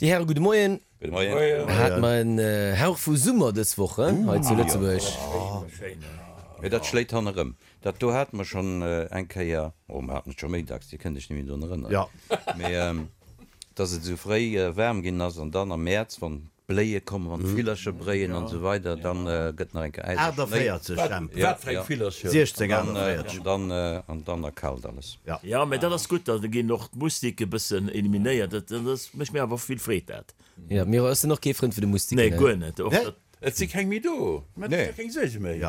Déi Häre gudde Moien. Gudde Moien. Hate mer en Hauch vu Summer dës Woch hei zu Lëtzebuerg. Mee dat schléit hannerëm. Dat do hate mer schonn eng Kéier, oh mer haten et scho méi dacks, Dir kënnt Iech net méi drun erënneren, mee dass et esou fréi waarm ginn ass an dann am Mäerz, wann d'Bléie kommen, wann d'Villercher bréien an esou weider, dann gëtt nach eng Kéier Äis a Schnéi. 48, Jemp. Wat fir eng Villercher? 16, 48. An dann, an dann erkaalt alles. Jo, mä dat ass gutt, da ginn och d'Mustike e bëssen eliminéiert. Dat mécht mir awer vill Freed, dat. Jo, Miro, ech sinn och kee Frënd vun de Mustiken. Nee, guer net. Och dat. Et si keng méi do. Mä et ass jo keng Suerge méi.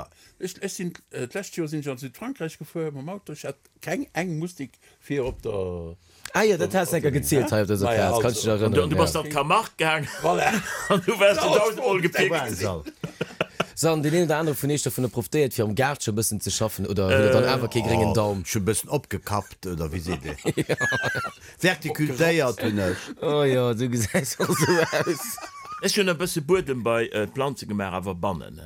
Ech, ech sinn, d'lescht Joer sinn ech an Südfrankräich gefuer mam Auto, ech hat keng eng Mustik fir op der. Ah jo, dat has de enker gezielt hei op dëser Plaz, kann ech dech erënneren. An du bass an d'Camargue gaang. Voilà. An du waars du dausendmol gepickt. So, an deen een oder anere vun iech dovunner profitéiert fir am Gaart scho bëssen ze schaffen, oder hutt der dann awer kee gréngen Daum? Ech hu bëssen opgekappt, oder wéi seet ee? Verticultéiert hunn ech. Oh jo, du gesäis och esou aus. Ech hunn e bësse Buedem bei d'Planze gemaach, awer bannen,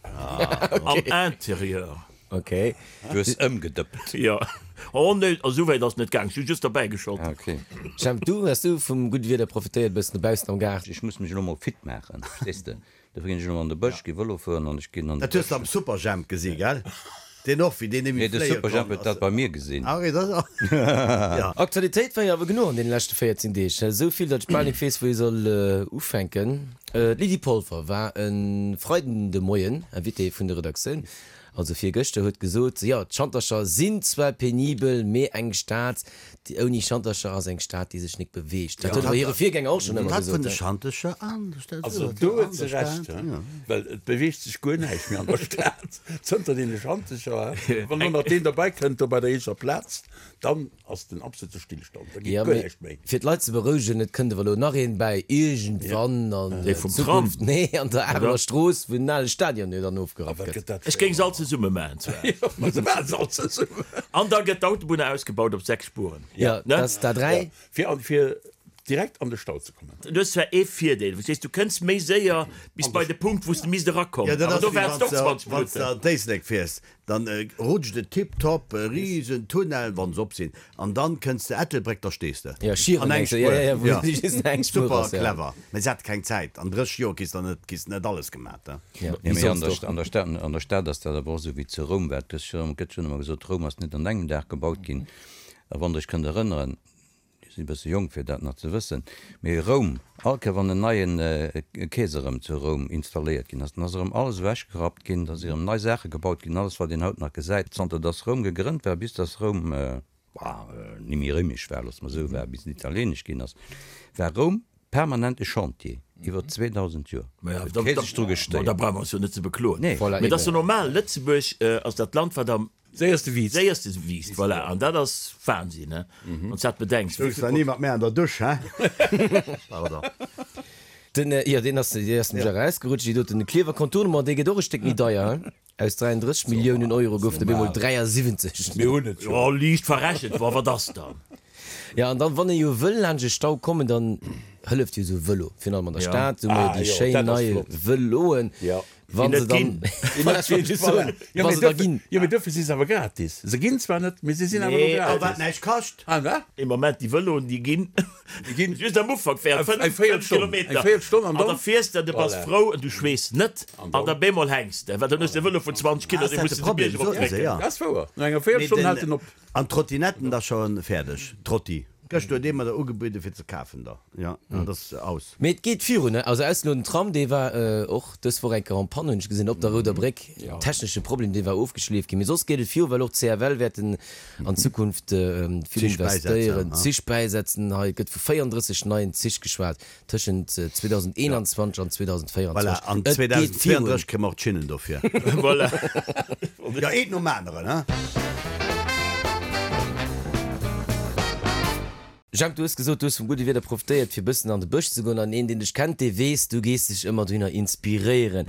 am Interieur. Ok. Du hues ëmgedëppt. Jo. Oh nee, esou wäit ass et net gaang, ech hu just derbäi geschott. Ah ok. Jemp, du, hues du vum gudde Wieder profitéiert, e bëssen dobaussen am Gaart? Ech muss mech elo mol fit maachen, verstees de? Dofir ginn ech elo an de Bësch, gi Vëlo fueren an ech ginn an de Dat hues de am Superjhemp gesi, gell? Deen och, wéi deen Nee, némmi de fléie Superjhemp konnt huet dat ass. bei mir gesinn. Ah, okay, dat ass, ja. Aktualitéit war jo awer genuch an deene leschte 14 Deeg. Esou vill, datt ech bal nik weess, wou ee soll ufänken. D'Lydie Polfer war e Freiden de Moien Invitée vun der Redaktioun, also virgëschter, huet gesot, jo, d'Schantercher sinn zwar penibel, mee eng Stad, Déi ouni Schantercher ass eng Stad, déi sech nik beweegt. Dat huet awer hire Virgänger och schonn ëmmer Dat vun gesot. de Schantercher an der Stad. Also do huet se Recht, well et beweegt sech guer näischt méi an der Stad zënter deene Schantercher. Wann elo nach deen derbäi kënnt do bei der Eecher Plaz, dann ass den absolute Stillstand, da geet Jo, guer mee näischt méi. fir d'Leit ze berouegen, et kënnt awer elo nach een bäi, iergendwann an Dee vum Tram, Zukunft, nee, an der Areler oder? Strooss, wou den ale Stadion jo dann ofgerappt A wat gëtt. gëtt dat Ech géing se all zesumme maachen zwar. Jo, ma se maache se all zesummen. An da gëtt d'Autobunn ausgebaut op 6 Spuren. Jo, dat ass d'A3. Fir an, fir direkt an de Stau ze kommen. Du hues zwar ee Virdeel, verstees, du kënns méi séier bis bei de Punkt, wou s de misst erakommen, Jo, dat awer ass do wéi waarts de och wann s 20 de, wann s de Minutten. an d'Éislek fiers, dann rutscht et tiptop, e riesen Tunnel, wann se op sinn, an dann kënns de Ettelbréck, da stees de Jo, Schieren an eng mengs de, jo, Spuer. jo, jo, wou Jo, just eng Spuer super ass, jo. clever. Mee se hate keng Zäit, an 30 Joer kriss de net, kriss de net alles gemat, he. Jo, Nee, wéi mee an soss der, och. an der Stad, an der Stad ass dat awer och esou wéi zu Roum war. Et gëtt jo, gëtt jo ëmmer gesot, Roum ass net an engem Dag gebaut ginn. A wann Der Iech kënnt erënneren, Dir sidd e bësse jonk fir dat nach ze wëssen, mee Roum, all Kéier wann en neien Keeser erëm zu Roum installéiert ginn ass, dann ass erëm alles ewechgerappt ginn, da si erëm nei Saache gebaut ginn, alles wat een haut nach gesäit, zanter dass Roum gegrënnt war, bis dass Roum, bah, ni méi réimesch war, loosse mer esou, war, bis et italieenesch ginn ass, war Roum permanent e Chantier, iwwer 2000 Joer. Huet kee sech dru gestéiert. Da brauche mer eis jo net ze bekloen. Nee. Mee et ass jo normal, Lëtzebuerg ass dat Land, wat am Séierste wiisst. Séierste wiisst, voilà. An dat ass Wahnsinn, he, wann s dat bedenks. Stoungs der ni mat mär an der Dusch, he? Pardon. Den, jo, deen ass, dee ass nämlech erausgerutscht, déi doten. De Klierfer Contournement, dee gëtt och e Stéck méi deier, he? Aus 33 Milliounen Euro goufen op eemol 73. Mir hunn et jo. Jo, liicht verrechent, wa wat ass dann? Jo, an dann, wann ee jo wëll laanscht e Stau kommen, dann hëlleft jo esou e Vëlo, virun allem an der Stad, hu mer jo déi schéin nei Vëloen. Wann se dann, voilà, ech wollt just soen, wa se da ginn. Jo, mee duerfir si se awer gratis. Se ginn zwar net, mee se sinn awer elo gratis. A wat näischt kascht. Ah, wat? Ee Moment, déi Vëloen, déi ginn, Déi ginn just am Ufank während eng 5 Véierelstonn, Kilometer. eng Véierelstonn an An da dann. fiers de, du bass Voilà. frou an du schweess net. An An dann. da bemol hänks de, well dann hues de e Vëlo vun 20 Kilo, Ass dee dat muss de de de Problem? Bierg erop Soten se, drécken. ja. Dat ass wouer. No enger Mee Véierelstonn den, hält en op. an d'Trottinetten da scho fäerdeg, Trotti. Gëschter huet ee mer der ugebueden fir ze kafen da, jo, an dat ass aus. Mee et geet virun, ne? Also ausser elo den Tram, dee war och dës Woch eng Kéier en panne, hunn ech gesinn, op der Rouder Bréck, technesche Problem, dee war ofgeschleeft ginn. Mee soss geet et viru, well och d'CFL wäerten an Zukunft vill Zich bäisetzen, investéieren, ha? Zich bäisetzen. Hei gëtt vu 34 neien Zich geschwat tëschent 2021 an 2024. Voilà, an Et geet virun. 2032 kréie mer och d'Schinnen dofir. Voilà. Jo, eent nom aneren, ha? Jemp, du hues gesot, du hues vum gudde Wieder profitéiert, fir bëssen an de Bësch ze goen. An een, deen dech kennt, dee weess, du gees dech ëmmer dohinner inspiréieren.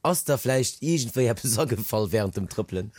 Ass der vläicht iergendwéi eppes agefall wärend dem Trëppelen?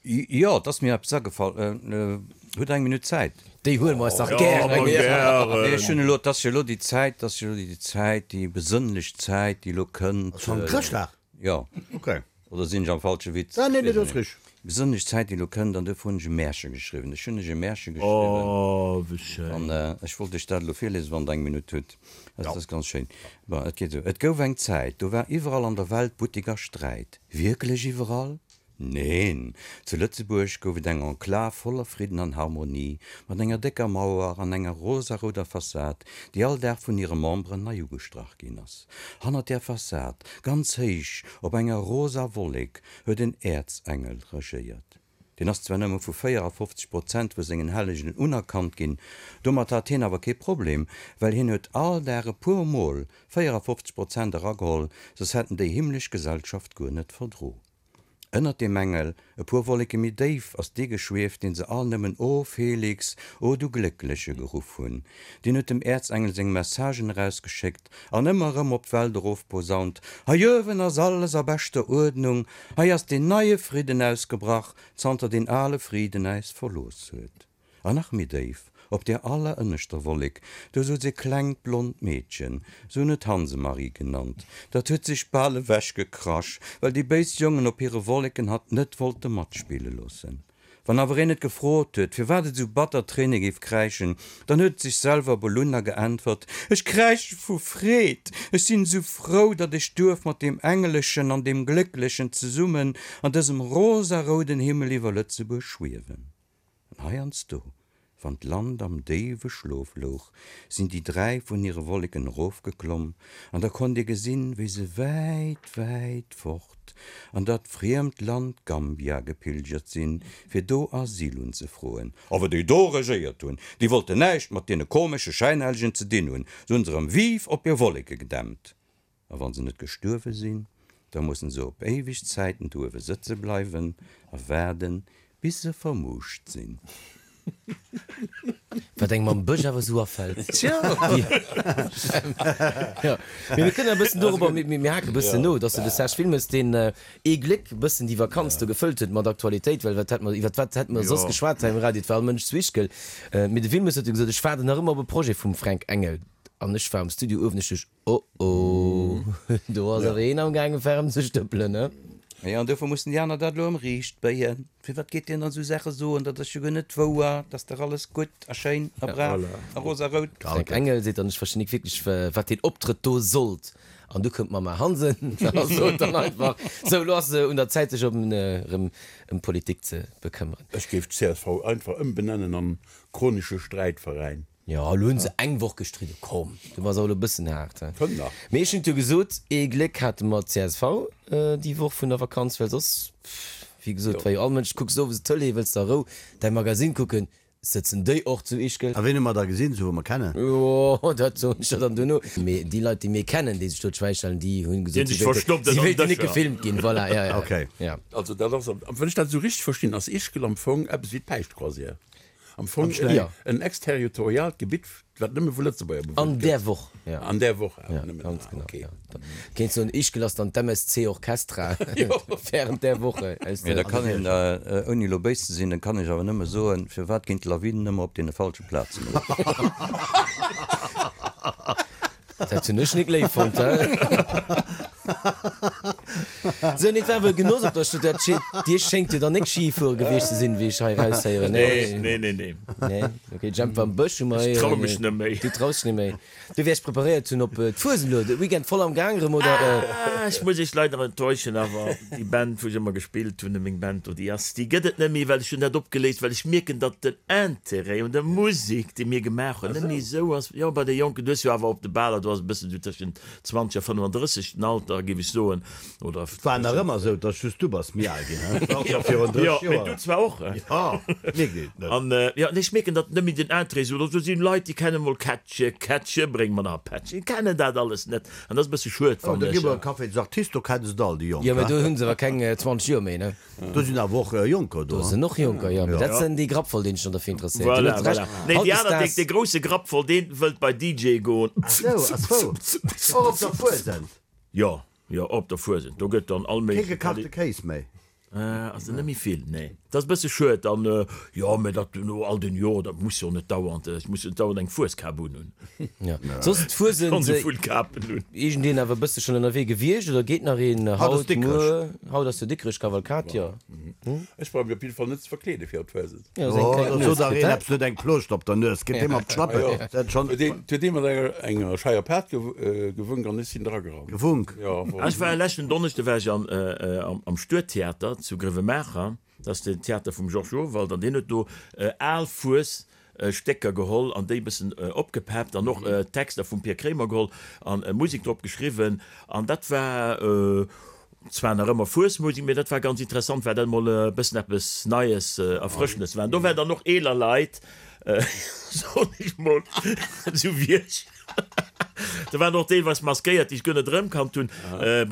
Jo, et ass mir eppes agefall. Hutt Der eng Minutt Zäit? Déi huele mer eis dach gären. Nee, ech hunn elo, et ass jo elo déi Zäit, et ass jo elo déi Zäit, déi besënnlech Zäit, déi elo kënnt. Ass schonn Chrëschtdag? Jo. Okay. Oder sinn ech am falsche Witz? Ah, nee, nee, dat ass richteg. Besonnesch Zäit déi elo kënnt, an duerfir hunn ech e Märche geschriwwen. Ech hunn lech e Märche geschriwwen. Oh, wéi schéin. An ech wollt lech dat elo virliesen, wann Der eng Minutt hutt. Et ass ganz schéin. Bon, et geet esou, Et gouf eng Zäit, do war iwwerall an der Welt Buttek a Sträit. Wierklech iwwerall? Neen! Zu Lëtzebuerg gouf et eng Enklav voller Fridden an Harmonie, mat enger décker Mauer an enger rosarouder Fassad, déi all Dag vun hire Memberen nei ugestrach ginn ass. Hannert där Fassad, ganz héich op enger rosa Wollek, huet en Äerzengel regéiert. Deen ass zwar nëmme vu 54 Prozent vu sengen Hellegen unerkannt ginn, domat hat hien awer kee Problem, well hien huet all Dag e puer Mol 54 Prozent erageholl, soss hätt en déi himmlesch Gesellschaft guer net verdro. Ënnert deem Engel, e puer Wolleke méi déif, ass dee geschwieft, deen se all nëmmen O Felix, o du Gléckleche geruff hunn. Deen huet dem Äerzengel seng Messagen erausgeschéckt an ëmmer erëm op d'Welt erofposaunt, Hei uewen ass alles a beschter Uerdnung, hei ass deen neie Fridden ausgebrach, zanter deen ale Friden äis verlooss huet. An nach méi déif, op där allerënneschter Wollek, do souz e klengt blond Meedchen, se hunn et Hansemarie genannt. Dat huet sech bal ewechgekrasch, well déi béis Jongen op hire Wolleken hatt net wollte matspille loossen. Wann awer een et gefrot huet, firwat et esou batter Tréine géif kräischen, dann huet et sech selwer belunn a geäntwert, Ech kräische vu Freed! Ech sinn esou frou, datt ech duerf mat deem Engelechen an deem Glécklechen zesummen an dësem rosarouden Himmel iwwer Lëtzebuerg schwiewen. An heiansdo, wann d'Land am déiwe Schlof louch, sinn déi 3 vun hire Wolleken erofgeklomm, an da konnt ee gesinn, wéi se wäit, wäit fort an dat friemt Land Gambia gepilgert sinn, fir do Asyl unzefroen. Awer déi do regéiert hunn, déi wollten näischt mat deene komesche Schäinhellegen ze dinn hunn, se hunn se erëm vive op hir Wolleke gedämpt. A wann se net gestuerwe sinn, da mussen se op éiweg Zäiten do uewe sëtze bleiwen a waarden, bis se vermuuscht sinn. Wat engem am Bësch awer esou afält. Tja! Jo, mee mir kënnen e bëssen dorobber, mir haken e bëssen no, dass de Serge Wilmes, deen ee Gléck e bëssen déi Vakanz do gefëllt huet mat Aktualitéit, well wat hätt mer, iwwer wat hätte mer soss geschwat hei um Radio, et war all Mënsch zu Ischgl. Mee de Wilmes huet jo gesot, ech waarden nach ëmmer op e Projet vum Fränk Engel. An ech war am Studio uewen, ech duecht, Oh oh, do ass awer een am gaange ferm ze stëppelen, ne? Jo, an dofir mussen déi aner dat elo ëm riicht béien. Firwat geet deen dann esou Saache soen? Dat ass jo guer net wouer, dat ass dach alles gutt a schéin a brav a rosarout. Fränk Engel seet dann, ech verstinn nik wierklech, wat deen Optrëtt do sollt. An du kënnt d'Mamma Hansen a sot dann einfach, sou, elo ass et un der Zäit, sech erëm ëm d'Politik ze bekëmmeren. Ech géif d'CSV einfach ëmbenennen an Chronische Sträitveräin. Jo, elo hunn se eng Woch gestridden. Komm, du bass awer elo e bëssen haart, he? Kënnt nach. Mee ech hunn et jo gesot, ee Gléck hate mer csv déi Woch vun der Vakanz, well soss, wéi gesot, war jo all Mënsch, kucks owes d'Tëlee, wëlls der a Rou däi Magasinn kucken, sëtzen déi och zu Ischgl. A ween hu mer da gesinn, sou wou mer kennen? Jo, dat soen ech der dann duerno. Mee déi Leit, déi mir kennen, déi sech do d'Schwäi stellen, déi hunn gesot, si wéilten, si wéilten net gefilmt ginn. Voilà, ja, ja. Okay. Ja. Also dat ass, wann ech dat esou richteg verstinn, ass Ischgl am Fong eppes wéi d'Päischtcroisière. Am Fong en exterritoriaalt Gebitt, wat nëmme vu Lëtzebuerger bewunnt gëtt. An där Woch, jo. An där Woch awer nëmmen. Ganz genau, jo. Kéint soen, Ischgl ass dann d'MSC Orchestra während där Woche. Mee da kann een, ouni elo béis ze sinn, da kann ech awer nëmme soen, firwat ginn d'Lawinen ëmmer op deene falsche Plazen erof? Dat hunn ech nik léif fonnt, he? Sou, nee, et war awer e Genoss op der Stad. Dat schéint, Dir schéngt jo dann nik Ski fuere gewiescht ze sinn, wéi ech hei eraushéieren, nee? Nee, nee, nee. Nee? Ok, Jemp war am Bësch, hu mer Ech trau mech net méi. Du traus dech net méi. Du wäers preparéiert hunn op d'Fuesent elo, de Weekend voll am Gaang erëm, oder? Ah, ech muss iech leider enttäuschen, awer déi Band, wou ech ëmmer gespillt hunn, meng Band do, déi ass, déi gëtt et net méi, well ech hunn dat opgeléist, well ech mierken, datt den Interêt un der Musek, déi mir gemaach hunn, net méi esou ass. Jo, bei de Jonken, du hues jo awer op de Baler, do ass e bëssen esou tëschent 20 a 35 den Alter, géif ech soen, oder. Et war nach ëmmer esou, dass just du bass méi al ginn, he? Och scho virun 30 Joer. Jo, mee du zwar och, he? Jo, mierkt een et net. An, jo, nee, ech mierken, datt net méi den Interêt esou ass. Do sinn Leit, déi kennen emol Kättche, Kättche, bréng mer nach e Pättchen, kennen dat alles net. An dat ass e bësse schued, Oh, fannen da gi ech. mer e Café des Artistes, do kennen se et all, déi Jonk, Jo, mee he? do hu se awer keng 20 Joer méi, ne? Do sinn awer och Jonker do. Do sinn och Jonker, jo, mee dat sinn déi Grappvoll, deen sech dann derfir interesséiert. Dir Voilà, hutt Recht. voilà. Nee, déi aner, dee, dee grousse Grappvoll, deen wëllt bei DJ goen. Ach sou, ach sou. Och op der Fuesent? Jo, jo, op der Fuesent. Do gëtt dann all Kee méigleche gekachte Kéis méi? Ass der net méi vill, nee. Dat ass e bësse schued. An, jo, mee dat no all den Joren, dat muss jo net dauernd, ech muss jo net dauernd eng Fueskap unhunn. Jo, soss d'Fuesent. Schonn esou vill Kapen hunn. Iergendeen awer e bësse schonn ënnerwee gewiescht oder geet nach een Haut ass haut, Dikrech. muer? Haut ass jo Dikrech Kavalkad, jo. Ech brauch mech op jidde Fall net ze verkleede fir op d'Fuesent. Jo, da sot dach een eppes, huet eng Plooscht op der Nues, geet deem op d'Schlappen. Dat schonn. Huet ee mat enger scheier Paart gewunk an ech sinn dragerannt. Gewunk? Jo. Ech war leschten Donneschde war ech am Stuedtheater zu Grevenmacher. Dat ass den Theater vum Georges Urwald an deen huet do al Fues Stécker geholl an déi e bëssen opgepeppt an och Texter vum Pir Kremer geholl an Musek drop geschriwwen an dat war zwar nach ëmmer Fuesmusek, mee dat war ganz interessant, well dat emol e bëssen eppes Neies, Erfrëschendes war. An do waren dann och eeler Leit, soen ech mol, esou wéi ech, do waren och deelweis maskéiert, déi ech guer net erëmkannt hunn.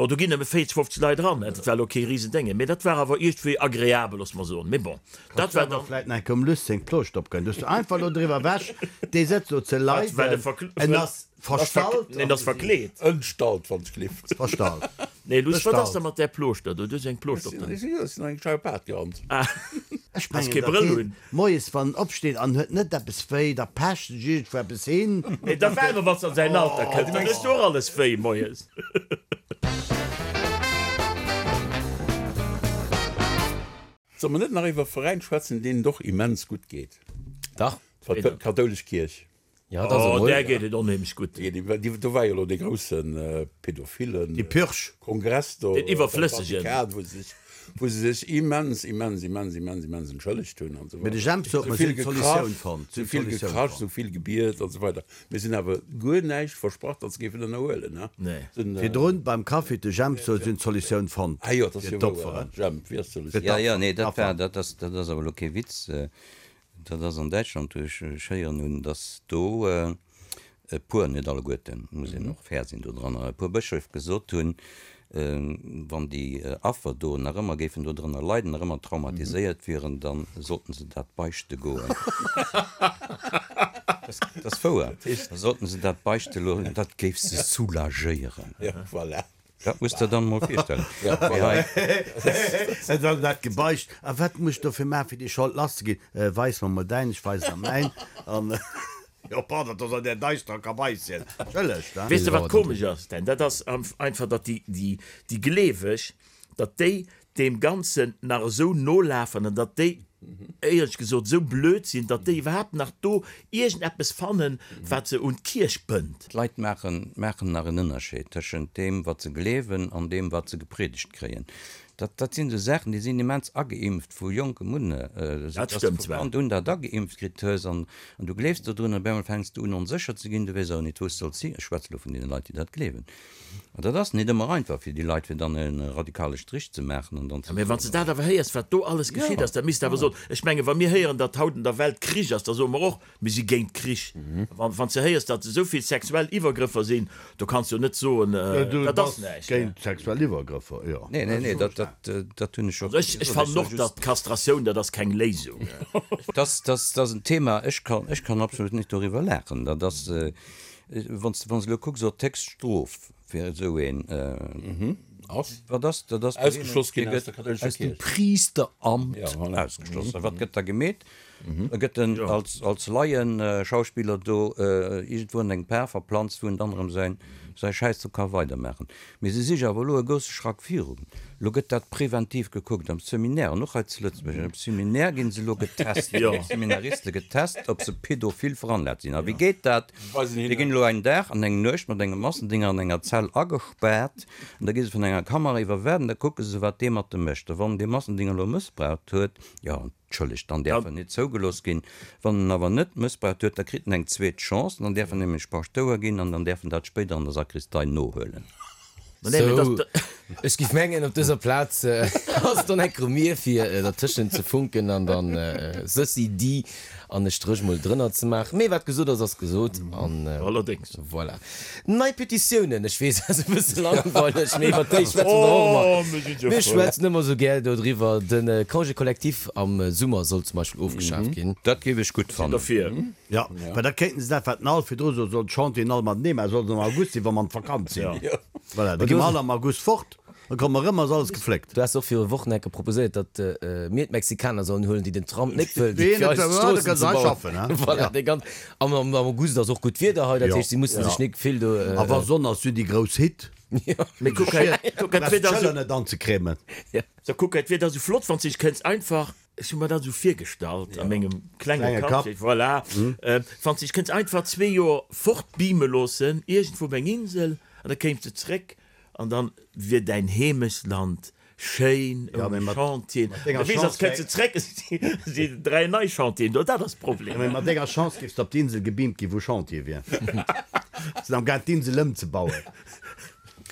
Bon, do ginn nëmme 40, 50 Leit eran, dat war elo kee Risendénge, mee dat war awer iergendwéi agreabel, loosse mer soen. Mee bon, dat war dann. Vläit nach eng Kéier um Luss seng Plooscht opgënn. Du hues du einfach elo driwwer ewech, dee sëtzt do ze leiden, en ass verstallt. En ass verkleet. Entstallt, wann ech gelift. Verstallt. Nee, Luss, wat ass da mat där Plooschter do? Du hues eng Plooscht op der. Ech sinn an eng scheier Paart gerannt. Ech Has mengen, kee datt Brëll deen un. moies, wann en opsteet an huet net eppes wéi, da pecht sech iergendwou eppes hin. Nee, da waarde wann s an säin Alter kënnt, dann hues du och alles wéi moies. Solle mer net nach iwwer e Veräin schwätzen, deenen et och immens gutt geet? Dach. D'kathoulesch Kierch. Ja, dat ass Oh, emol. där geet et onheemlech gutt. Do war jo elo dee grousse Pädophilen. Déi Purge. Kongress do. Deen iwwerflëssegen. Am Vatikan, wou se sech, wou se sech immens, immens, immens, immens, immens entschëllegt hunn an esou Mee de weider. Jemp sot, Sou mer vill sinn d'Solutioun gekrasch, fonnt. sou vill gekrasch, sou vill gebiet an esou weider. Mee se hunn awer guer näischt versprach, datt se géifen ënnerhuelen, ne? Nee. Se hunn. Virdrun beim Kaffi huet de Jemp sot, si hunn d'Solutioun fonnt. Ah jo, dat ass Fir jo wouer, d'Opferen. Jemp, wéi ass d'Solutioun? Ja, ja, nee, dat war, dat ass, dat ass awer elo kee Witz. Dat ass an Däitschland, wou ech héieren hunn, datt do e puer, net alleguerten, muss een och fair sinn dodranner, e puer Bëscheef gesot hunn, wann déi Affer do nach ëmmer géifen dodrënner leiden, nach ëmmer traumatiséiert wieren, da sollten se dat beichte goen. Dat ass wouer. Da sollten se dat beichte loossen, dat géif se soulagéieren. Voilà. Dat muss der dann mol virstellen. Mee hei. Et ass dat gebeicht. A wat muss ech dofir maachen, fir déi Schold lass ze ginn? Weis mer mol däin, ech weisen der mäin. An, jo, pardon, dat ass an där daisterer Kabaisschen. Entschëllegt, hein. Weess de wat komesch ass, Dan? Dat ass einfach, datt déi, déi Gleeweg, datt déi deem Ganzen nach esou nolafen an datt déi, éierlech gesot, esou blöd sinn, datt déi iwwerhaapt nach do iergendeppes fannen, wat se un d'Kierch bënnt. D'Leit maachen maachen nach en Ënnerscheed tëschent deem, wat se gleewen an deem, wat se gepriedegt kréien. Dat, dat sinn esou Saachen, déi sinn immens ageimpft vu jonkem un, esou Dat dass de stëmmt vu zwar. Kand un dat ageimpft kritt hues an, an du gleefs dodrun an op eemol fänks de un onsécher ze ginn, du weess awer nit, wou s de solls hin. Ech schwätze elo vun deene Leit, déi dat gleewen. An dat ass nit ëmmer einfach fir déi Leit, fir dann e radikale Strich ze maachen an dann ze Mä wann s de soen. dat awer héiers, wat do alles geschitt ass, da misst de awer soen, ech menge wa mir héieren, datt haut an der Welt Krich ass, da soe mer och, mir si géint Krich. Wann s de héiers, datt esou vill sexuell Iwwergrëffer sinn, do kanns de jo net soen, Du dat ass bass näischt. géint sexuell Iwwergrëffer, jo. Nee, nee, nee, dat, dat, dat hunn ech och Also ech, ech gesot. Ech fannen soe och, just. datt Kastratioun, dat ass keng Léisung. Dat, dat ass en Thema, ech kann, ech kann absolut net doriwwer laachen. Dat ass, Wann s de elo kucks op d'Héchststrof fir esou een, Ass? wat ass dat? Ass Ausgeschloss ginn aus der kathoulescher aus dem Kierch. Priesteramt Ja, voilà. ausgeschloss. A wat gëtt da gemeet? Da gëtt en als, als Laienschauspiller do iergendwou an eng Par verplanzt, wou en dann erëm säin, säi Schäiss do ka weidermaachen. Mee se si jo awer elo e grousse Schrack virun. Elo gëtt dat preventiv gekuckt am Seminaire an och hei zu Lëtzebuerg. Am Seminaire ginn se elo getest, ginn d'Seminariste getest, ob se pädophil veranlagt sinn. A wéi geet dat? Déi ginn elo een Dag an eng Nuecht mat engem Massendinger an enger Zell agespaart an da gi se vun enger Kamera iwwerwaacht an da kucke se, wat dee mat dem mécht. A wann dee Massendinger elo mëssbraucht huet, jo, entschëllegt, dann däerf en net zougelooss ginn. Wann en awer net mëssbraucht huet, da kritt en eng zweet Chance an dann däerf en nämlech Paschtouer ginn an dann däerf en dat spéider an der Sakristei nohuelen. Sou, ech giff mengen, op dëser Plaz ass et dann enk erëm mir, fir dertëschent ze funken an dann ceci dit an e Stréch mol drënner ze maachen. Mee wat gesot ass, ass gesot an Allerdéngs. voilà. Nei Petitiounen, ech weess, ass e bësse langweileg, mee iwwer déi schwätze mer och ëmmer. Mir schwätzen ëmmer esou gär dodriwwer. De Congé collectif am Summer soll zum Beispill ofgeschaaft ginn. Dat géif ech gutt fannen. Derfir. Jo, well da kéinten se dat, wat den Alf virdru sot, soll d'Chantieren all matenee maachen, soll se am August sinn, wa mer an d'Vakanz sinn. Voilà, da gi mer all am August fort, da komme mer erëm, ass alles gefléckt. Du has och viru Wochen enke proposéiert, datt mir d'Mexikaner sollen huelen, déi den Tram net wëllen, Déi fir eis net wëllen, d'Stroossen da kënne ze se hei bauen. schaffen, hein? Voilà, déi ganz, am am August ass och gutt Wieder hei, dat Jo. heescht, si musse sech nik vill do. A wa Sonn ass, sinn déi grouss Hitt. Mee kuck hei, kuck hei, d'Wieder ass Schëller net anzecremen. So, kuck hei, d'Wieder ass esou flott, wann s de dech kënns einfach, ech hu mer dat esou virgestallt a mengem klenge Kapp, voilà, wann s de dech kënns einfach zwee Joer fortbeame loossen, iergendwou op eng Insel, an da kéims de zréck an dann wier däin Heemechtsland schéin ouni Chantieren. Da weess ass, kënns de zréck, si 3 nei Chantieren do, dat ass de Problem. Mee mat denger Chance géifs de op d'Insel gebeamt ginn, wou Chantier wier. Sinn am gaang d'Insel ëmzebauen.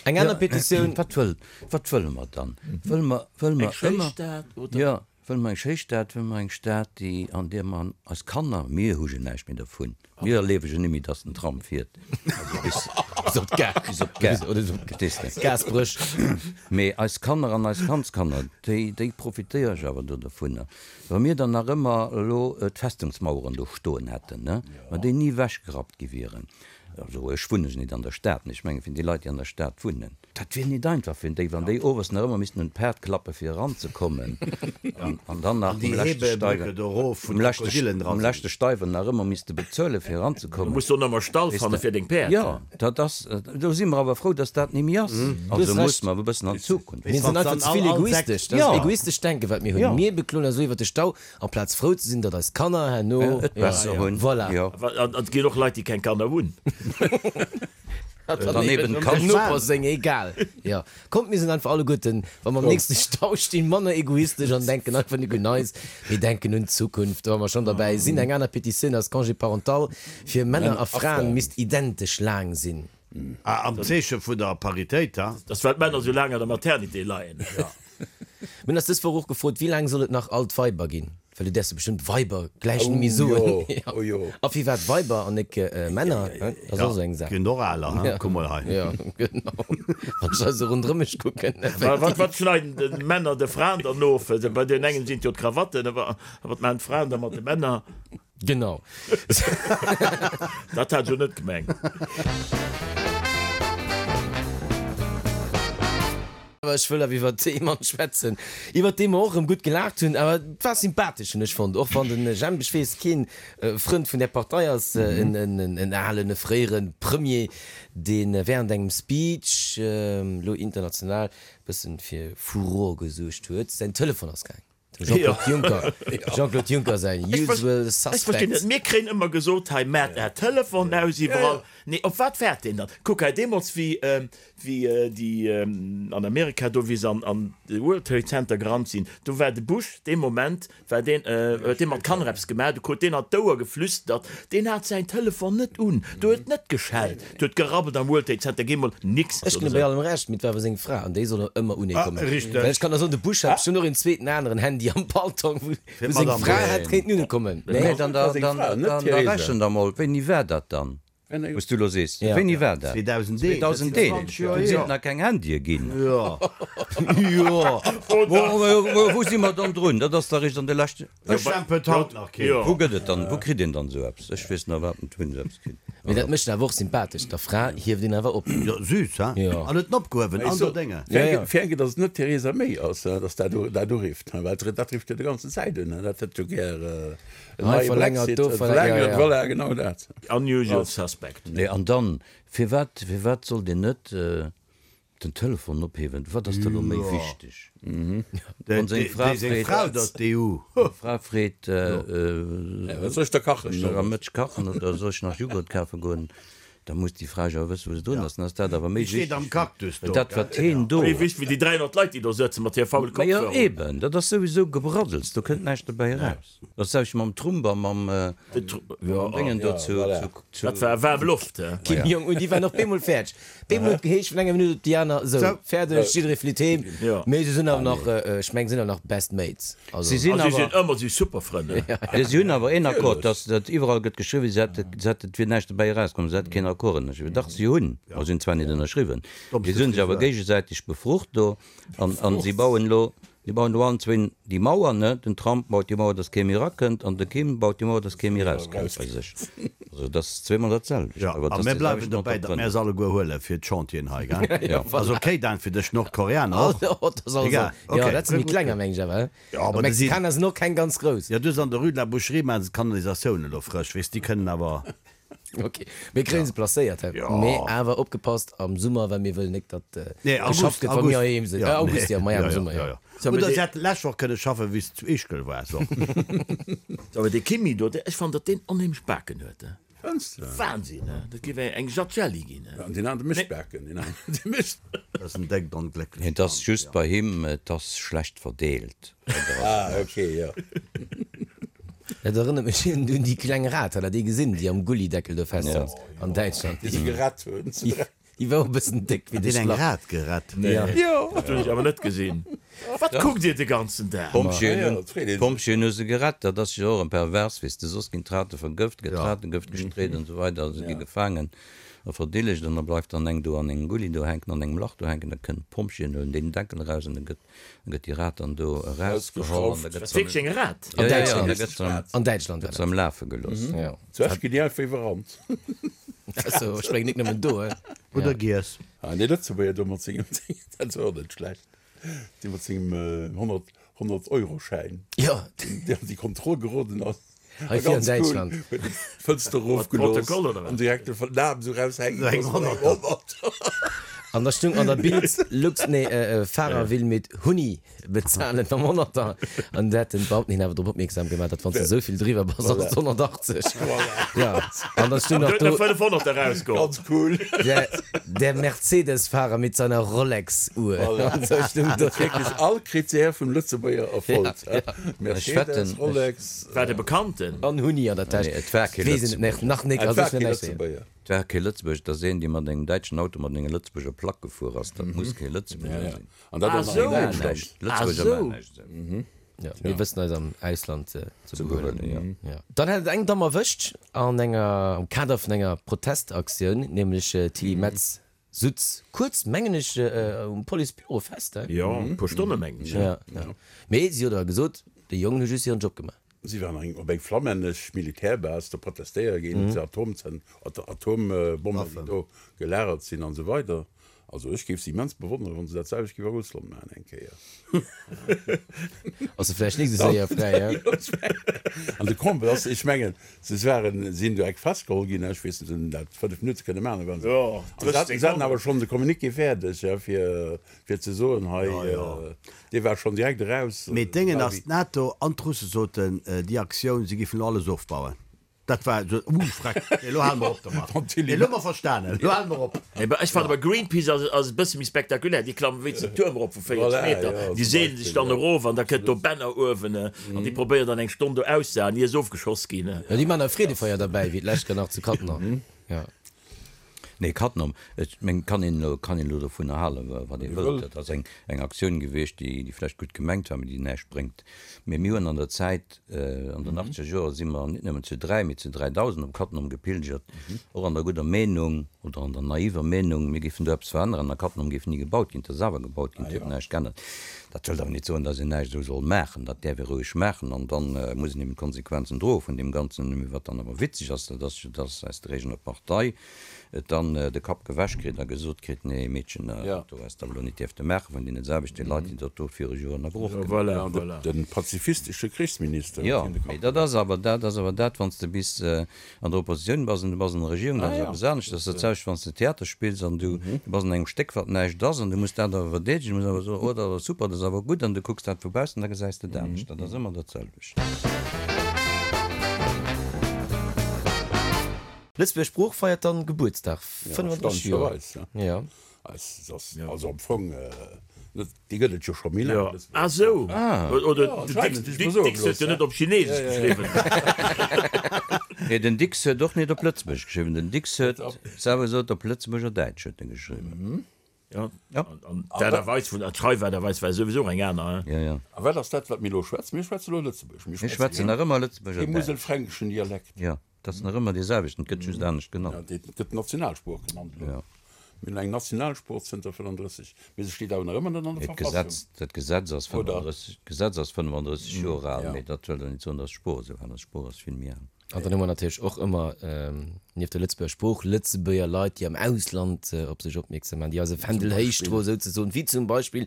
Eng aner Petitioun. Wat wëll, wat wëlle mer dann? Wëlle mer, wëlle mer Eng schéi ëmmer, Stad, oder? jo, wëlle mer eng schéi Stad, wëlle mer eng Stad, déi, an där mer eis Kanner, mir hu jo näischt méi dervun, mir erliewe jo net méi, datt den Tram fiert, also bis, Bis op d'Gare. bis op d'Gare, Oder bis op verstees de? d'Gasbréch. Mee eis Kanner an eis Kandskanner, déi, déi profitéiere jo awer do dovunner. Wa mir dann nach ëmmer elo d'Festungsmaueren do stoen hätten, ne, wa déi ni ewechgerappt gi wieren, Also ech wunnen jo nit an der Stad, mee ech mengen fir déi Leit déi an der Stad wunnen, dat wier nit einfach fir déi, wann déi owes nach ëmmer missten un d'Paart klappe fir eranzekommen an an dann nach An déi um leschte Hebebrücke Steiwer, do erof, wou um leschte, d'Krokodilen dra um sinn. leschte Steiwer nach ëmmer misste bezuele fir Du eranzekommen. muss do nach emol Stall Weess fanne de. fir deng Päerd. Jo, dat ass, do si mer awer frou, dass dat ni méi ass. Du Also hues muss Recht. mer awer e bëssen an d'Zukunft. Mir sinn einfach ze vill egoistesch. Dat ass Jo. egoistescht Denken, wat mir hunn. Jo. Mir bekloen eis elo iwwer de Stau, Amplaz frou ze sinn, datt eis Kanner herno et besser hunn. Voilà. Jo. An et ginn och Leit, déi keng Kanner hunn. Dann eben dem d'Kanner. Noper seng, egal. Jo. Kommt, mir sinn einfach alleguerten, wa mer am nächste Stau stinn, manner egoistesch an denken einfach nik un eis, mee denken un d'Zukunft. Wa mer schonn derbäi sinn, eng aner Petitioun ass, Congé parental fir Männer a Fraen misst identesch laang sinn. Ah, am Zeeche vun der Paritéit, ha? Dass well d'Männer sou laang an der Maternité leien. Mir hunn eis dës Woch och gefrot, wéi laang soll et nach alt Weiber ginn? Well du däerfs jo bestëmmt Weiber gläich net méi soen. Oh jo. A firwat Weiber an nek Männer? Dat ass och esou eng Saach. Ginn och aler, ha? Kuck mol hei. Jo, genau. Wann ech esou ronderëm mech kucken. Wat, wat schneiden d'Männer de Fraen dann of? Bei deenen engen sinn et jo d'Krawatten, a wat maachen d'Fraen da mat de Männer? Genau. Dat hat ech jo net gemengt. Awer ech wëll awer iwwer ee Mann schwätzen, iwwer dee mer och erëm gutt gelaacht hunn. Awer et war sympathesch, hunn ech fonnt, och wann de Jemp, ech weess, keen Frënd vun där Partei ass, en alen, e fréiere Premier, dee während engem Speech elo international e bëssen fir Furore gesuergt huet. Säin Telefon ass gaang. Dem Jean-Claude Juncker, Jean-Claude Juncker säin usual Ech verstinn net, suspects. mir kréien ëmmer gesot, hei maacht är Telefon aus iwwerall. Nee, op wat waart deen dann? Kuck hei, deemools wéi wéi déi an Amerika do, wéi se an an de World Trade Center gerannt sinn, do war de Bush dee Moment war deen, huet dee mat Kanner eppes gemaach, du krut deen an d'Ouer geflüstert, deen hat säin Telefon net un, do huet net geschellt, do huet gerabbelt am World Trade Center, géi mol nix. Ech ginn bei allem Recht, mee et war awer seng Fra an déi soll och ëmmer unee kommen. Richteg. Well ech kann der soen, de Bush hat bestimmt och een zweeten aneren Handy am Paltong, wou Fir seng d'Madame Fra Bush. hätt kéinten unee kommen. Nee, Nee. dann, war seng dann, Fra, net dann, d'Theresa. da rechent der mol, wéini war dat dann, wou s du elo sees? Ja. Wéini war dat? 2001. 2001, do sinn et nach keng Handye ginn. Jo. Jo. Wou, wou si mer dann drun? Dat ass da eréischt an de leschte. Ech stempelt haut nach keen. Wou gëtt et dann, wou kritt een dann esou eppes? Ech weess nach iwwerhaapt net, wou een esou eppes kritt. Mee dat mécht en awer och sympathesch, der Fra hieft een awer op. Jo, süß, he? Jo. An huet en opgehuewen an der Dénge. Ja, ja. Fir eng Kéier, datt et net d'Theresa May ass, datt dat dat urifft, well dat rifft jo déi ganzen Zäit un, dat hätt jo gär en Hei neie verlängert, Brexit, do verlängert, ja, ja. Voilà, genau dat. Unusual suspect. Nee, an dann, firwat, firwat sollt een net Den Telefon ophewen, wat ass da lo méi wichteg? Wann seng Fra freet, seng Fra freet, Wat soll ech da kachen? Soll ech am Mëtteg kachen oder soll ech nach Jughurt kafe goen? Da muss déi Fra jo awer wëssen, wou se drun ass. Dann ass dat awer méi wichteg wéi dat, wat heen do. Méi wichteg wéi déi 300 Leit, déi do sëtzen mat hir faule Majo Kopfhörer. eben, dat ass souwisou Gebraddels, do kënnt näischt dobäi eraus. Dat selwecht mam Trump a mam Déngen do zu. Dat war waarm Loft, he? Kim Jong Un, déi waren och bemol fäerdeg. Bemol huet geheescht vun enger Minutt op déi aner, sou, fäerdeg, jidderee flitt heem. Mee se sinn awer nach, ech meng, se sinn awer nach best mates. Also. Si sinn A si sinn awer. ëmmer si super Frënn, he? Jo, si hunn awer een Accord, dass dat iwwerall gëtt geschriwwen, si hätte, si hätte, et wier näischt dobäi erauskomm, si hätte keen Accord ënnerschriwwen. Dach, si hunn, ma si hunn zwar net ënnerschriwwen, mee si hunn sech awer géigesäiteg befrucht do an, an si bauen elo, Si bauen do allen zwéin déi Mauer, ne? Den Trump baut déi Mauer, dass kee méi erakënnt, an de Kim baut déi Mauer, dass kee méi erauskënnt bei sech. Also dat ass zweemol dat selwecht. Jo, Awer a et ass mir déi bleiwen selwecht dobäi, datt mir Entrepreneur. se alleguer huele fir d'Chantieren hei, gell? Jo. Ass okay dan fir dech, Nordkoreaner och? Oh, dat ass alles Egal, jo, okay. dat sinn méi klenger, meng ech awer, he? Jo, awer déi sinn. Mexikaner sinn och keng ganz grouss. Jo, du hues an der Rue de la Boucherie maachen se d'Kanalisatioun elo frësch, weess, déi kënnen awer. Ok, mir kréien se placéiert, hä? Jo. Mee awer opgepasst am Summer, well mir wëllen nik, datt Nee, geschafft August, gëtt, wa mir August. heiheem sinn. Ja, Äh, August, nee. jo, maja, Ja, am ja, Summer, ja, jo. ja. So, mee Oder dee- se hätten d'lescht Woch kënne schaffen, wéi s de zu Ischgl waars och. So, awer dee Kimi do, dee, ech fannen, datt deen onheemlech Baken huet, he? Fënns de? Wahnsinn, he? Dat géif eng Jatt Jelli ginn, he? An deen anere mécht Baken, deen anere, dee mécht. Dat ass en déckt onglécklecht Et ass Land, just ja. bei him, et ass schlecht verdeelt. Ah, ok, jo. Dat erënnert mech un déi kleng Rat, hat der déi gesinn, déi am Gullideckel do festsass an Däitschland? Déi se gerett hunn. Déi war och e bëssen déck wéi Hat de deen eng Schlapp. Rat gerett? Jo. Dat hunn ech awer net gesinn. Wat kuckt Dir de ganzen Dag? D'Pompjeeën Ja, hunn, dat freet ee sech. d'Pompjeeën hu se gerett. Dat ass jo och en pervers, weess de, soss ginn d'Rate vergëft, gëtt Ratengëft gestreet an esou weider, se gi gefaangen a verdillegt an da bleift dann eng do an engem Gulli do hänken, an engem Lach do hänken, da kënnen d'Pompjeeën huelen deen Deckel eraus an da gëtt Da gëtt déi Rat dann do erausgeholl an da gëtt se Wierklech eng Rat? Ja, ja, ja, da gëtt se am, An Däitschland gëtt se am Lafe gelooss. Ja. Zu Esch ginn déi einfach iwwerrannt. Also, ech mengen nik nëmmen do, he. Oder giess. Ah, dee Lëtzebuerger do mat sengem Ding, dat ass och net schlecht. Dee mat sengem 100, 100 Euro-Schäin, Jo. deen an déi Kontroll geroden ass. Hei vir an Däitschland. Huet en d'Fënster erofgelooss an direkt de Naam esou raushänken gelooss mat engem Honnerter. An da stung an der Bild, Lux, nee, Fahrer will mit Huni bezahlen mam Honnerter. An da hat den Beamten hien awer drop opmierksam gemaach, datt wann s de esou vill driwwer bass, ass et 180. Jo, an da stung nach do. Huet nach 500 erausgeholl. Ganz cool. Der, der Mercedes-Fahrer mit seiner Rolex-Uhr. An sou stung do. Wierklech all Critère vum Lëtzebuerger erfollt. Mercedes, Rolex. War de Bekannten? An Huni an der Täsch. Nee, et war kee Weess een et Lëtzebuerger. nach nik. Et Also war ech net kee näischt soen. Lëtzebuerger. Et war kee Lëtzebuerger. Et ass een, dee mat engem däitschen Auto mat enger Lëtzebuerger Plack gefuer ass. Dat muss kee Lëtzebuerger sinn. An dat Ah, och nach sou. an Maachen Däitschland. näischt. Ah, Lëtzebuerger sou. maachen näischt esou. Ja, mir wëssen eis am Ausland ze Ze behuelen. behuelen, jo. Ja. Dann hat et eng Damm erwëscht an enger, am Kader vun enger Protestaktioun, nämlech d'Tilly Metz Sutz kuerz, mengen ech, um Policebüro fest, he? Jo, e puer Stonne mengen ech. Ja, ja. Mee si huet awer gesot, déi Jongen hu just hiren Job gemaach. Si waren eng op eng flammännesch Militärbase do protestéiere géint d'Atomzen, Atombommen, déi do gelagert sinn an esou weider. Also ech géif se immens bewonneren, wann se dat selwecht géif a Russland maachen eng Kéier. Ass se vläicht nik esou séier fräi, he? An de Comble ass, ech mengen, se waren, sinn do eck festgeholl ginn, ech weess net, se hunn dat 5 Minutte kënne maachen, da waren se, Jo, an se haten, se haten awer schonn de Communiqué fäerdeg, ja, fir, fir ze soen, hei, dee war schonn direkt eraus. Mee d'Déngen ass, d'NATO an d'Russe soten, déi Aktioun, se géifen elo alles ofbauen. Dat war esou, uh, freck, nee, elo hale mer op domat. Nee, elo hu mer verstanen, elo hale mer op. Nee, ech fannen awer Greenpeace ass, ass e bësse méi spektakulär. Déi klammen wéinst den Tuerm erop vu 40 Voilà, Meter, ja, déi zum seelen sech Beispill, dann ja. erof an da kënnt do Banner uewen an déi probéieren dann eng Stonn do auszehalen, ier se ofgeschoss ginn. Jo, déi maachen e Freedefeier derbäi, wéi d'lescht Joer nach zu Cattenom. Jo. Nee, Cattenom, ech mengen, kann een elo, kann een elo dovunner halen, wat ee wëllt. Dat ass eng, eng Aktioun gewiescht, déi, déi vläicht gutt gemengt war, mee déi näischt bréngt. Mee mir hunn an der Zäit, an den achtzeger Joer si mer net nëmmen zu 3, mee zu 3.000 op Cattenom gepilgert, och an der gudder Meenung oder an der naiver Meenung, mir géifen do eppes veränneren a Cattenom géif ni gebaut ginn. Et ass awer gebaut ginn, et huet näischt geännert. Dat wëllt awer net soen, datt een näischt esou soll maachen. Dat däerf ee roueg maachen an da muss een eben d'Konsequenzen droe vun deem Ganzen. Mee wat dann awer witzeg ass, dat ass jo, datt aus der eegener Partei et dann de Kapp gewäsch kritt a gesot kritt, Nee, Meedchen, dat do häss de awer elo net dierfte maachen, vun deene selwechte Leit, déi dat do viru Joren a Broch gemaach hunn. De pazifistesche Krichsminister Jo, huet hien de Kapp mee dat ass awer dat ass awer dat, wann s de bis an der Oppositioun bass an du bass an der Regierung, dat ass eppes anescht. Dat ass dat selwecht, wann s de Theater spills an du bass an engem Stéck, wat näischt ass, an du muss dat awer verdeedegen, du muss awer soen, oh, dat ass super, dat ass awer gutt, an du kucks dat vu baussen, da gesäis de et anescht. Dat ass ëmmer dat selwecht. Lëtzebuerger Sprooch feiert dann Gebuertsdag, 35 Joer. Erstaunlecherweis, Ja. Es ass also am Fong net, déi gëtt et jo scho méi laang. Jo, ah sou. Oder Ja, den anscheinend, Dicks, ech muss soe Dicks huet jo gelooss, net op Chinesesch geschriwwen. Nee, den Dicks huet och net op Lëtzebuergesch geschriwwen. Den Dicks huet selwer gesot, op Lëtzebuerger Däitsch huet en geschriwwen. Ja, an d'Aart a Weis vun, d'Schreifaart a Weis war souwisou och eng aner, hein. Ja, ja. A wat ass dat, wat mir elo schwätzen? Mir schwätze elo Lëtzebuergesch. Mir schwätzen nach ëmmer Lëtzebuerger Däitsch. Däitsch. Muselfränkischen Dialekt. Ja. Dat ass nach ëmmer dee selwechten, et gëtt just anescht genannt. Ja, dee gëtt Nationalsprooch genannt elo. Ja. Mir hunn eng Nationalsprooch zënter 35, mee se steet awer nach ëmmer net an der Mee Verfassung. d'Gesetz, dat Gesetz ass Oder? 35, d'Gesetz ass 35 Joer al, Ja. mee dat wëll jo net soen, datt d'Sprooch esou al ass. D'Sprooch ass vill méi al. An dann hu mer natierlech och ëmmer, nieft der Lëtzebuerger Sprooch, Lëtzebuerger Leit, déi am Ausland op sech opmierksam maachen, déi eise Fändel héich droen, souzesoen, wéi zum Beispill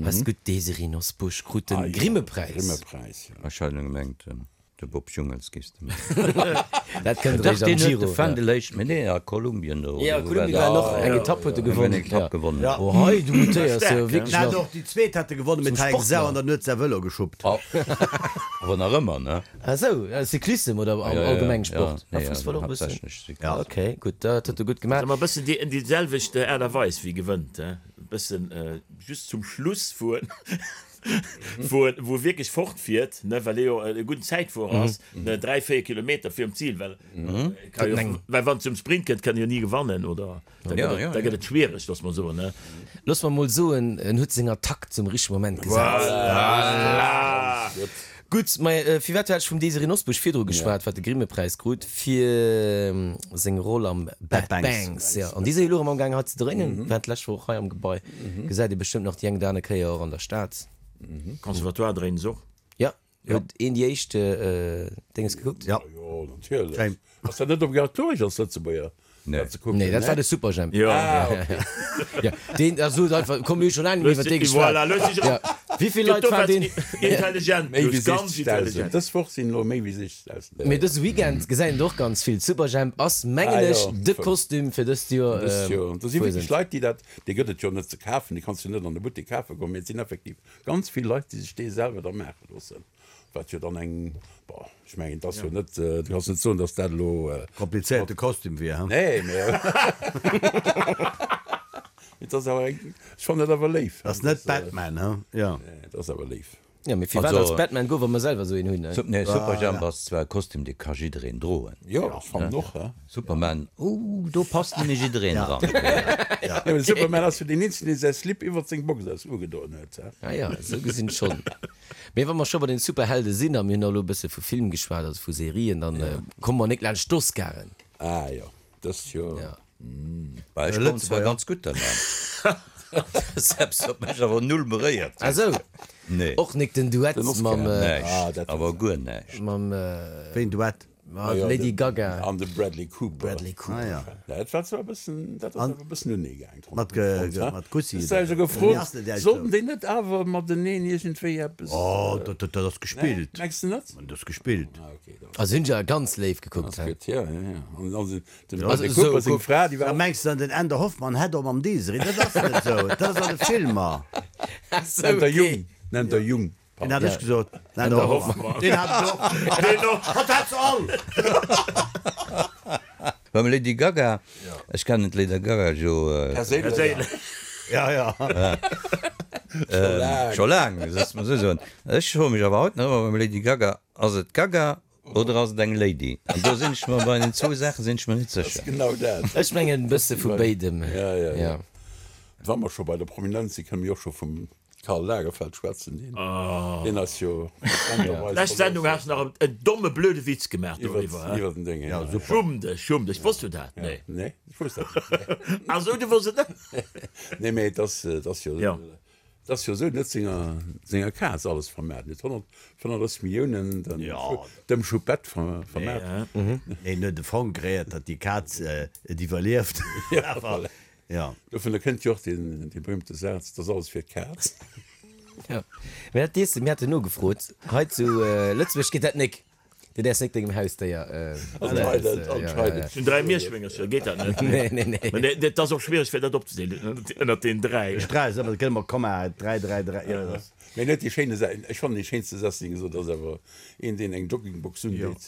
eis gutt Desiree Nosbusch krut de Ah jo, Grimmepräis. Grimmepräis, ja. Ech hat elo gemengt. De Bob Jungels giffs de mengen. Dat kënnt Dach, eréischt am deen huet Giro. de Fändel héich, mee nee, a Kolumbien do, Jo, oder wou war Kolumbien war dat? och eng Etapp huet e Eng gewonnen. Etapp gewonnen. Ja. Oh hei, du mutéiers jo Staark, wierklech Hat nach och déi zweet hat e gewonnen, mee zum hat eng Sau Sportler. an dann huet säi Vëlo geschuppt. Awer nach ëmmer, ne? Ah sou, Cyclissem oder Ja, ja, allgemeng ja, Sport? Ah, nee, Fussball och e bëssen? haaptsächlech Cyclissem. Ja. Ok, gutt, dat huet e gutt gemaach. Ass ëmmer e bëssen déi, déi selwecht Aart a Weis wéi gewënnt, he? E bëssen just zum Schluss fueren. wou en wou e wierklech fortfiert, ne, well e jo e gudden Zäitfuerer ass, ne, 3, 4 Kilometer virum Zil, well e ka jo, well wann et zum Sprint kënnt, kann e jo ni gewannen, oder da gëtt et, da gëtt et schwiereg, loosse mer soen, ne. Loosse mer mol soen, en huet seng Attack zum richtege Moment gesat. Voilà! Gutt, mä firwat hat ech vum Désirée Nosbusch virdru geschwat, wat de Grimmepräis krut fir seng Roll am Bad Banks. Jo, an déi si jo elo erëm amgaang hei ze dréinen, war d'lescht Woch hei am Gebai. Gesäit ee bestëmmt nach déi eng oder aner Kéier och an der Stad. Conservatoire dréinen se och. Jo, huet een déi éischt Dénges gekuckt? Jo. Jo, natierlech. Ass dat net obligatoresch als Lëtzebuerger? Nee. Dat ze kucken, Nee, dat ne? war de Superjhemp. Jo. Ah, okay. Ja, deen, da sot einfach, komm, mir hu scho laang net méi iwwer dee geschwat. Voilà, looss dech Ja. Wéi vill Leit waren deen? Intelligent, Méi wéi lues, ganz 60.000. intelligent. Dës Woch sinn elo méi wéi 60.000. Mee dëse Weekend gesäit een et och ganz vill. Superjhemp ass, mengen Ah, ech, jo. de Kostüm fir dëst Joer. Dëst Joer. Do si wierklech Fuesent. Leit, déi dat, dee gëtt et jo net ze kafen, dee kanns du net an de Buttek kafe goen, mee et sinn effektiv ganz vill Leit, déi sech dee selwer da maache loossen. Wat jo dann eng, bon, ech mengen, et ass jo net, du kanns net soen, datt dat elo. Komplizéierte Kostüm wier, he? Nee, mee et ass awer eng, ech fannen dat awer léif. Ass net Batman, he? Jo. Nee, et ass awer léif. Jo, mee firwat als Batman goen, wa mer selwer esou een hunn, ne? Nee, Superjhemp ass zwar e Kostüm, dee ka jiddereen droen. Jo, ech fannen och, he. Superman, oh, do passt net méi jiddereen dran. Jo, mee de Superman ass jo deen eenzegen, dee säi Slip iwwert seng Box aus ugedoen huet, he. Ah jo, esou gesinn schonn. Mee wa mer scho bei den Superhelde sinn, a mir hunn elo e bësse vu Film geschwat, also vu Serien, dann komme mer nik laanscht d'Oscaren. Ah jo, dëst Joer. Ja. Bah, ech kommen zwar ganz gutt derlaanscht. Dat ass eppes, wat mech awer null beréiert huet. Ah sou. Nee. Och nik den Duett Den Oscar. mam. Näischt, awer guer näischt. Mam. Wéi en Duett? Mat Lady Gaga. An de Bradley Cooper. Bradley Cooper. Ah ja. Dat war zwar e bëssen, dat ass awer e bëssen unee gaang. Mat mat Kussi. Ech hu gefrot, sollten déi net awer mateneen iergendwéi eppes. Oh, dat dat ass gespillt. Mengs de net? Dat ass gespillt. Ah okay, dann. Also hunn se awer ganz léif gekuckt. Ass gutt, ja, ja, ja. An dann den Bradley Cooper seng Fra, déi war. Da mengs de an den Änder Hoffmann hätt och mam Desiree, dat ass net esou, dat ass an de Filmer. Nennt der Jung, nennt der Jung. Deen hat ech gesot. Den Änder Hoffmann. Deen hat et och. Deen och. Hatt hat se all. Beim Lady Gaga, ech kennen d'Lady Gaga jo. Perséinlech. Ja, ja. Scho laang, looss mer esou soen. Ech froe mech awer haut nach ëmmer beim Lady Gaga, ass et d'Gaga oder ass et eng Lady? An do sinn ech mer bei den zwou Saache sinn ech mer net sécher. Genau dat. Ech mengen e bësse vu béidem. Ja, ja, ja. Wa mer scho bei der Prominenz sinn, kënne mir och scho vum Karl Lagerfeld schwätzen, deen, deen ass jo D'lescht rezent Sendung has de nach en domme blöde Witz gemaach doriwwer, he? iwwer den Déng, ja. Ja, super. Schumm dech, schumm dech. Wosst du dat? Nee. Nee, ech wosst dat net. Ah sou, du wosst et net? Nee, mee et ass, et ass jo, Ja. et ass jo esou, en huet senger, senger Kaz alles vermaart. En huet 135 Milliounen dem, dem Choupette ver, vermaart. Nee, en huet e Fong kreéiert, datt déi Kaz et iwwerlieft. Ja, voilà. Ja. Dovunner kënnt jo och deen, dee berühmte Saz, 't ass alles fir d'Kaz. Ja, mä dat dees de, mir haten nogefrot, hei zu Lëtzebuerg geet dat nik. Du däerfs nik dengem Hausdéier. Anscheinend, anscheinend. Ech hunn 3 Mierschwéngercher, geet dat net? Nee, nee, nee. Mä dat ass och schwiereg fir dat opzedeelen ënnert den 3. Ech 3 ass ëmmer, dat gëtt ëmmer Komma, 3, 3, 3, jo, dat ass. Mä en huet déi schéine Sa, ech fannen dee schéinste Saz, deen e gesot huet, ass awer een, deen eng Joggingbox undeet.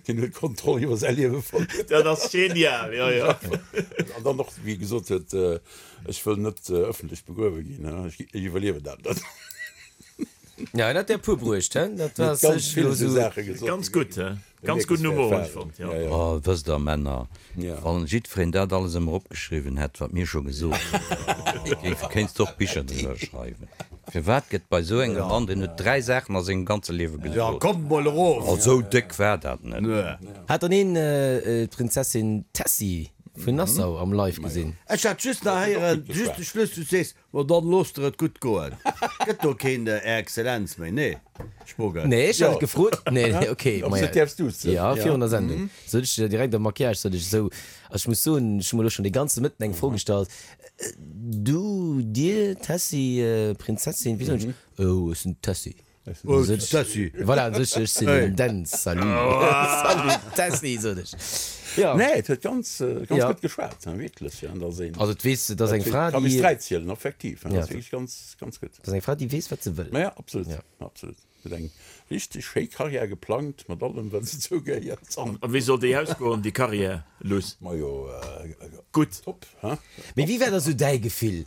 Deen huet d'Kontroll iwwer säi Liewe verluer. Dat ass genial, jo, jo. An dann och, wéi e gesot huet, Ech wëll net ëffentlech begruewe ginn, ech iwwerliewen dat net. Ja, en hat der e puer bruecht, he? Dat war Huet ganz sech vill elo esou esou. Saache gesot. Ganz gutt, he? Ganz gudden Humor, hunn ech fonnt, jo. Oh, wësst der, Männer, wann jiddwereen dat alles ëmmer opgeschriwwen hätt, wat mir scho gesot hunn, géif, kéinst de och Bicher driwwer schreiwen. Firwat gëtt bei esou engem Mann, deen huet 3 Saachen a sengem ganze Liewe Ja, gesot. kommt mol erof! Oh, esou déck war dat net. Hat dann een d'Prinzessin Tessy vun Nassau am Live gesinn? Ech hat just nach héieren, just de Schluss, du sees, Ma dann loosst der et gutt goen. Gëtt do keen Är Exzellenz méi? Nee, Spogel. Nee, ech hat et gefrot. Nee, nee, ok. Ob se däerfs duzen? Ja, virun der Sendung. Sot ech direkt am Maquillage, sot ech esou. Also ech muss soen, ech hu mer elo schonn de ganze Mëtten eng Fro gestallt. Du, dir, Tessy, Prinzessin, wéi soen ech? Oh, ech sinn d'Tessy. Tessy. Voilà, an sech, ech sinn den Dänz. Salut. Salut Tessy, sot ech. Jo. Nee, et huet ganz, ganz gutt geschwat, wierklech. An da sinn. Also et weess, et ass eng Fra, déi. Ka bis 3 zielen, effektiv. Dat ass wierklech ganz, ganz gutt. Dat ass eng Fra, déi weess, wat se wëll. Ma ja, absolut, absolut. Huet eng richteg schéi Karriär geplangt, mat allem, wat dozou gehéiert. A wéi soll déi ausgoen, déi Karriär, Luss? Majo, gutt. Top, he? Mee wéi war da sou däi Gefill?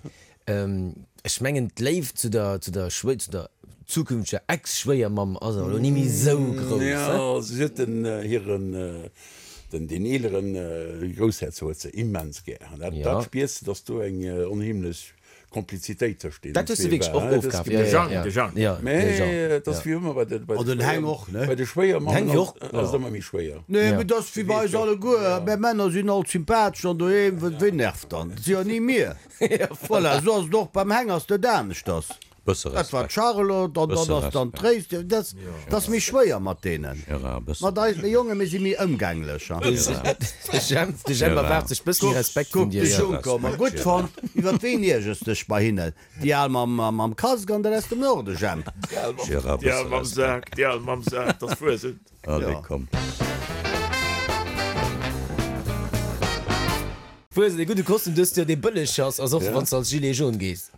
Ech mengen d'Léift zu der, zu der Schwéi, zu der zukünfteger Ex-Schwéiermamm ass awer elo ni méi esou grouss, he? Jo, si huet den hiren, den, deen eeleren Groussherzog huet se immens gär. An dat, dat spiers de, datt do eng onheemlech Komplizitéit tëscht deenen Dat hues de wierklech och ofkaf, jo, jo, jo. De Jang. Jo, de Jean. Mä et ass wéi ëmmer bei de, bei An den Heng och, ne? bei de Schwéiermammen ass, ass et ëmmer méi schwéier. Nee, mee dat ass wéi bei eis alleguer. Mär Männer sinn alt sympathesch an doheem, ween nervt dann? Et si jo ni mir. Voilà, esou ass et och beim Heng, ass dat aneschters. Bësse Dat war Respekt. d'Charlotte an Bësse dann ass dann Respekt. d'Tréis. Dat dat ass méi schwéier mat deenen. Gérard, bësse Mat eis, mir Jongen, mir si méi ëmgänglech. Gérard. De Jemp, de Jemp Gérard. erwaart sech bëssen méi Respekt vun Kuck, dir, de jo. Juncker, ma gutt Respekt, fonnt. Iwwer ween iergers dech bei hinnen? Déi al mam, mam Casque an der aus dem Norden, Jemp? Gérard, Déi al bësse mam Respekt. Sak, déi al mam Sak, 't ass Fuesent. Allez, komm. Fuesent, ee gudde Kostüm dëst Joer, dee bëlleg ass, ass och wann s de als Gilet jaune gees.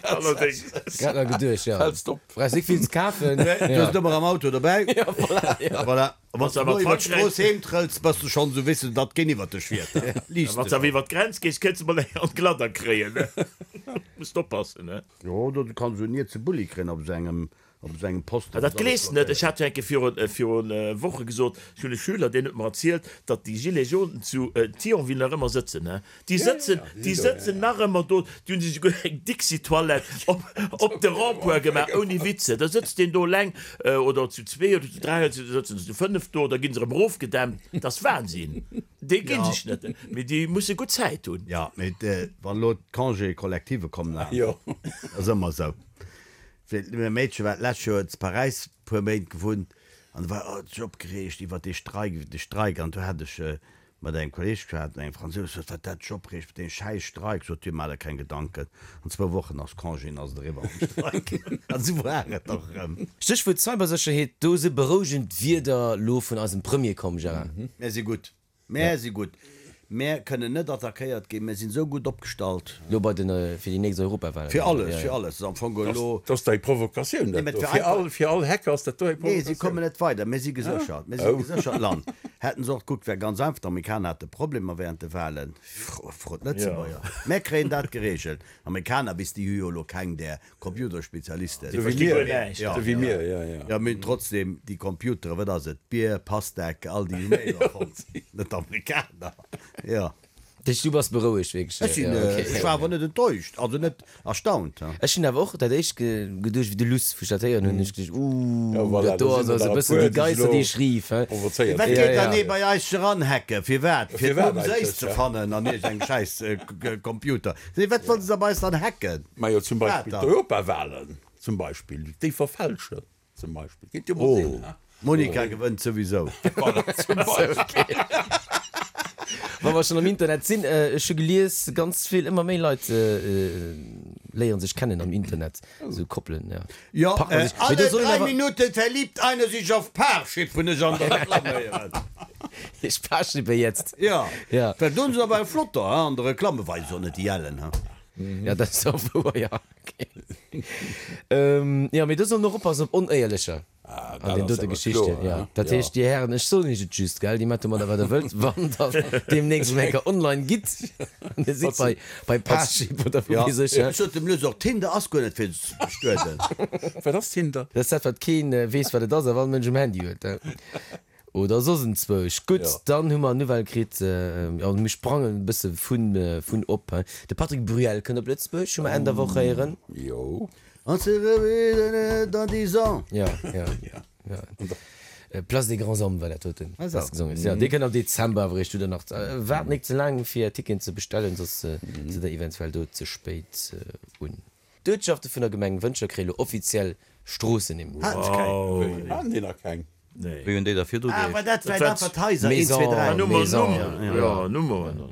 Allerdéngs. Grad nach geduecht, jo. Fällst op. Brauchs nik vill ze kafen. Du hues et ëmmer am Auto dobäi. Jo, voilà, jo. Voilà. A wann s Wann du s awer elo iwwer Frankräich. d'Strooss heem trëlls, bass du schonn esou, weess du, datt keen iwwer dech fiert. Liicht Wann s de awer iwwer d'Grenz gees, kënns de mol eng an d'Gladder kréien, ne? Muss oppassen, ne? Jo, do kanns du en Nietse Bulli kréien op esou engem Op esou engem Posten. Ah, dat gleefs de net. Ech hat jo eng Kéier virun, virun Woche gesot, ech hunn e Schüler, deen huet mer erzielt, datt déi Gilets jaunes zu Thionville nach ëmmer sëtzen, ne? Déi sëtzen, déi sëtzen nach ëmmer do. Déi hunn sech esouguer eng Dixi-Toilette op, op de Rond-point gemaach, ouni Witze. Da sëtzt deen do eleng, oder zu zwee oder zu dräi, oder sëtzen se zu fënnef do, da gi se erëm erofgedämpt. Dat ass Wahnsinn. Déi gi sech net, mee déi musse gutt Zäit hunn. Jo, mee wann elo d'Congé collective kommen, ass ëmmer esou. Well mäi Meedche war d'lescht Joer zu Paräis puer Méint gewunnt an do war huet sech opgereegt iwwert dee Streik, iwwert de Streik an do hat ech mat engem Kolleeg geschwat, mat engem Fransous, sot wat dat sech opreegt mat deem schäiss Streik, sot hie, maach der keng Gedanken, an zwou Wochen ass Congé an ass et eriwwer mam Streik. An esou war et och erëm. Stéchwuert Cybersécherheet, do si berouegend Wierder lo vun eisem Premier komm, Gérard. Mär si gutt. Mär si gutt. Mär kënnen net attackéiert ginn. Mär sinn esou gutt opgestallt. Lo bei den, fir déi nächst Europawahlen. Fir alles, fir alles. Ass am Fong elo. Dat ass dei Provokatioun, dat do. Fir all, fir all Hacker ass dat do eng Nee, si Provokatioun. kommen net weider. Mir si geséchert. Mir si e geséchert Land. Hätten se och gekuckt, wär ganz einfach. D'Amerikaner hate Problemer während de Wahlen. Frot d'Lëtzebuerger. Mär kréien dat geregelt. Amerikaner, bis déi hu jo elo keng där Computerspezialisten. Sou wéi mir, sou wéi mir, jo, jo. Jo, mee trotzdem, déi Computeren, wat ass et, Bier, Pastek, all déi hu mir jo erfonnt, net d'Amerikaner, jo. Dat heescht, du bass berouegt wierklech? Ech sinn, ech war awer net enttäuscht, also net erstaunt. Ech hunn awer och dat éischt geduecht, wéi de Luss, wou ech dat héieren hunn, hunn ech geduecht, Ooh, Jo, voilà, dat do do ass sinn also der e e bëssen puer, déi déi sech Geister, elo déi ech rief, he. provozéiert Wat fillen. geet dann ee bei eis eranhacken? Firwat? Fir Firwat d'Mumm Séiss eigentlech, ze ja? fannen an iergendengem schäiss Computer. Wat wollte se bei eis dann hacken? Majo zum Wat Beispill dann? d'Europawahlen zum Beispill, déi verfälschen zum Beispill, kéint jo mol sinn, Oh, he? d'Monica gewënnt souwisou. Voilà, zum Beispill. Wa mer schonn am Internet sinn, ech hu gelies, ganz vill, ëmmer méi Leit léieren sech kennen am Internet, esou Koppelen, jo. Jo, Partner sich. Mee alle do soll een 3 awer. Minuten verliebt einer sich auf Parship, hunn ech an der Reklamm héieren. Ich Parshippe jetzt. Jo, Ja. well do hunn se awer eng flotter, he, an der Reklamm, weisen se och net déi ellen, he. Ja, dat ass och wouer, jo. Okay. Jo, mee do soll een och oppassen op Onéierlecher Ah, an dat den ass dote awer Geschichten. kloer, Ja, he? dat Jo. heescht, Dir Hären, ech soen Iech et just, gell, Dir maacht domadder, wat Der wëllt, wann Der deemnächst erëm eng Kéier online gitt an Dir sidd bei, bei Parship oder wou Ja, weess ech, ech sot dem Luss och, Tinder ass guer net fir ze bestueden. Wat ass Tinder? Dat ass dat, wat keen weess, wat et ass, awer all Mënsch um Handy huet. Oder soss enzwousch. Gutt, dann hu mer Nouvelle kritt, jo, mir sprangen e bësse vun, vun op. De Patrick Bruel kënnt op Lëtzebuerg, hu mer Enn der Woch héieren. Jo. On se reverra dans dix ans. Jo, jo, jo. Place des Grands Hommes war dat doten, wat gesongen ass. Jo, dee kënnt am Dezember awer eréischt. Hutt der nach, waart nik ze laang fir Ticketen ze bestellen, soss sidd der eventuell do ze spéit un. D'Uertschafte vun der Gemeng Wëntger kréie lo offiziell Stroossennimm. Haten se keng? Haten déi nach keng? Nee. Wéi hunn déi da virdru Ah, war geheescht? dat vläit einfach d'Haiser? 1, 2, Maison. 3. Nummer, Maison, Nummer, ja. ja, Nummeren.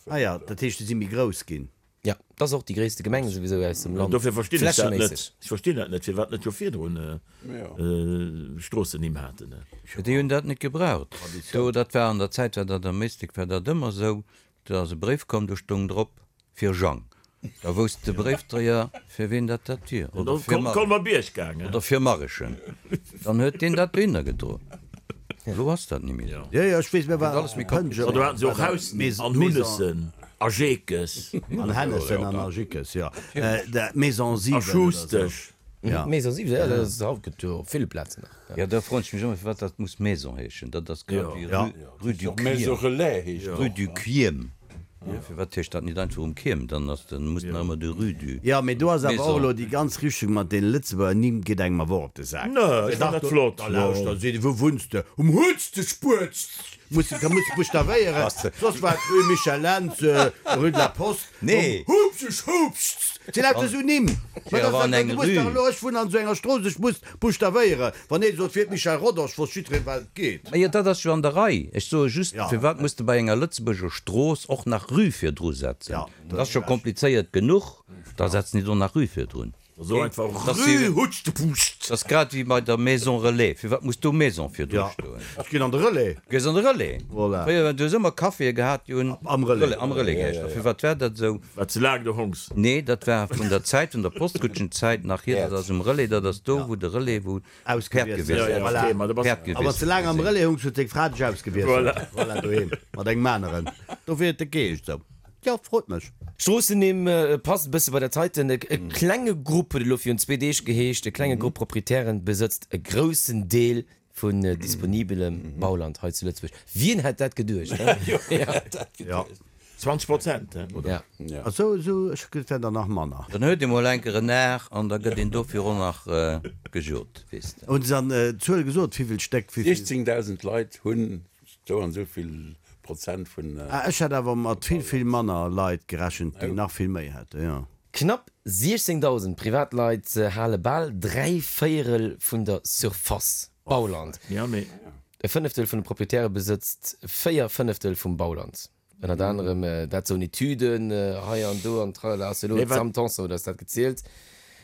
Ah ja, dat heescht, déi si méi grouss ginn. Ja, dat ass och déi gréisste Gemeng souwisou aus dem Land, Dofir verstinn ech dat net. flächeméisseg. Ech verstinn dat net, firwat net scho virdrun Stroossennimm haten. Déi hunn dat net gebraucht. Do, dat war an der Zäit, war dat am Éislek war dat ëmmer esou, do ass e Bréif komm, do stoung drop, Fir Jang. Da wousst de Bréifdréier, fir ween dat dat wier. Oder fir Mar. Colmer-Bierg gaangen. Oder fir Marrechen. Dann huet deen dat dohinner gedroen. Elo ass dat ni méi esou. Jo, jo, ech weess, mir waren alles méi komplizéiert. An do haten se och Hausnimm an Hunnessen a Jeekes. An Hennessen an a Jickes, jo. Maison 7 A oder esou. Schustesch. Ja. Maison 7, jo, dat ass haut, gëtt jo op ville Plazen nach. Jo, da froen ech mech ëmmer, firwat dat muss Maison heeschen. Dat ass grad wéi Jo. Rue du Och Maison Quiem. Relais heescht Rue och. du Quiem. Firwat heescht dat nit einfach um Kierm? Dann ass den, muss nach ëmmer de Rue du. Jo, mee do ass awer och Maison. elo déi ganz Richtung mat deene Lëtzebuerger Nimm geet engem awer och op de Sak. Nö, ech fannen dat flott. Da lauschter, seet e, wou wunns de? Um Hutztespuerz! Muss de, da muss de buschtavéieren, soss war et Rue Michel Lentz, Rue de la Poste, Nee. um Hupseschups! Et si lauter esou Nimm. Mä Jo, dat awer an ass, eng du muss dach Rue. elo, ech wunnen an esou enger Strooss, ech muss buschtavéieren. Wann ee sot, wier et Michel Rodange, wosst jiddwereen, wat et geet. Majo, dat ass jo an der Rei. Ech soe just, Ja. firwat muss de bei enger Lëtzebuerger Strooss och nach Rue virdru setzen? Ja, Dat ass scho komplizéiert genuch, da setz nit och nach Rue virdrun. So einfach Dat ass wéi- Rue Hutschtepuuscht. Dat ass grad wéi bei der Maison Relais. Firwat muss do Maison virdru Ja, stoen? ech ginn an de Relais. Du gees an de Relais. Voilà. Fréier, du hues ëmmer Caféë gehat, déi hunn Am Relais. Am Relais geheescht. A firwat war dat esou? War ze laang do hongs. Nee, dat war vun der Zäit, vun der Postkutschenzäit nach hier. Dat ass um Relais, dat ass do, wou de Relais, wou d'Päerd Ausgewiesselt. gewiesselt Ja, ja, Voilà. okay, ma da bass Päerd A wann s de gewiesselt laang am sinn. Relais hungs, huet deng Fra dech ausgewiesselt. Voilà. Voilà, doheem mat engem aneren. Dofir huet de geheescht esou. Jo, frot mech. Stroossennimm passt e bësse bei dat heiten. E klenge Grupp huet elo virun zwee Deeg geheescht. E klenge Grupp Proprietären besëtzt e groussen Deel vun disponibelem Bauland hei zu Lëtzebuerg. Wien hätt dat geduecht, he? Jo. 20 Prozent, he? Ja. A sou, sou, ech gëtt der nach manner. Dann huet ee mol enker en Ar an da gëtt een dofir och nach gejot, weess de. Hunn se dann d'Zuel gesot, wivill Stéck, wivill? 16.000 Leit hunn Sou an sou vill Prozent vun. Ah, ech hätt awer mat vill, vill manner Leit gerechent, déi nach vill méi hätten, jo. Knapp 16.000 Privatleit hale bal 3 Véierel vun der Surface Bauland. E Fënneftel vun de Proprietäre besëtzt 4 Fënneftel vum Bauland. Ënnert anerem dat soen Etüden hei an do an tralala ass elo d'Sam Tanson huet eis dat gezielt.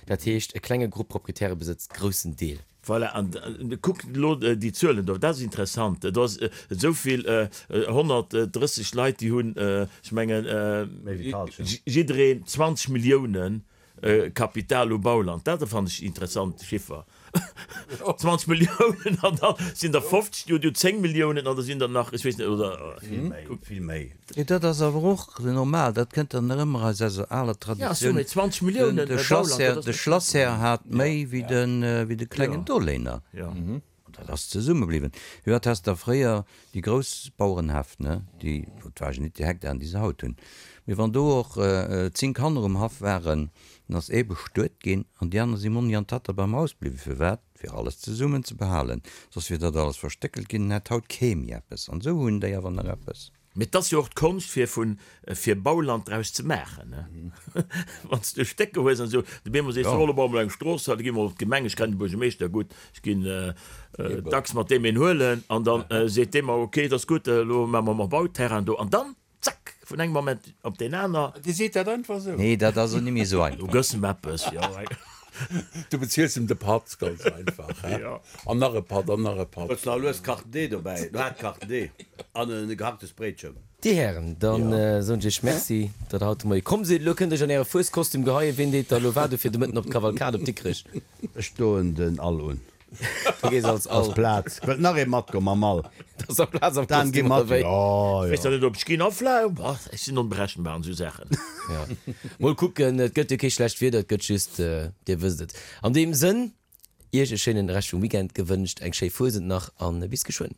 Dat heescht e klenge Grupp Proprietäre besëtzt groussen Deel. Voilà, an kuck elo déi Zuelen do, dat ass interessant. Do ass esou vill, 130 Leit, déi hunn, ech mengen, jiddereen 20 Milliounen Kapital u Bauland, dat fannen ech interessant Chiffer. 20 Milliounen an da sinn der 50, déi hunn 10 Milliounen an da sinn der nach, ech weess net, oder. Vill méi, vill méi. Jo, dat ass awer och normal, dat kënnt dann nach ëmmer aus eiser aler Traditioun. Ja, 20 Milliounen De Bauland, de Schlassherr hat méi wéi de klengen Doléiner. Dat ass zesumme bliwwen. Firwat has der fréier déi grouss Bauerenhäff, ne, déi, et war jo nit déi Hektaren, déi se haut hunn, mee wann do och 10 Kanner um Haff waren, dann ass ee bestuet ginn an déi aner si Monni an Tatta beim Haus bliwwen. Firwat? Fir alles zesummen ze behalen. Soss wier dat alles verstéckelt ginn, dann hätt haut kee méi eppes. An esou hunn déi awer nach eppes. Mee et ass jo och d'Konscht fir vun fir Bauland draus ze maachen, ne? Wann s de Stécker hues an esou, de Bemo sees, elo baue mer eng Strooss, da gi mer op d'Gemeng, ech kennen de Buergermeeschter gutt, ech ginn dacks mat deem een huelen an dann seet dee mer, ok, et ass gutt, elo maache mer mer Bauterrain do an dann, zack, vun engem Moment op deen aner. Dir seet dat einfach esou? Nee, dat ass och ni méi esou einfach. Du gëss em eppes, jo. Du beziels em de Patt, ganz einfach, he? An nach e Patt, an nach e Patt. Hues nach lues Carte D dobäi? Du hat Carte D an e gehacktes Bréitchen. Dir Hären, dann soen ech iech Merci, datt der haut de Moie komm sidd. Elo kënnt iech an äre Fueskostüm geheien. Ween deet da elo wat u fir de Mëtten op d'Kavalkad op Dikrech? Ech doen den All un. Du gees als All. Ass Plaz. Wëllt nach ee matgoen mam All? Et ass nach Plaz am Dan, gi Kostüm, mat. oder wéi? Jo, Ech weess jo. nach net, ob ech ginn. A vläicht, boah, ech sinn onberechenbar an esou Saachen. Ja. Mol kucken, et gëtt jo kee schlecht Wieder, et gëtt just, Dir wësst et. An deem Sënn, Iech e schéinen Rescht vum Weekend gewënscht, eng schéi Fuesent nach an bis geschwënn.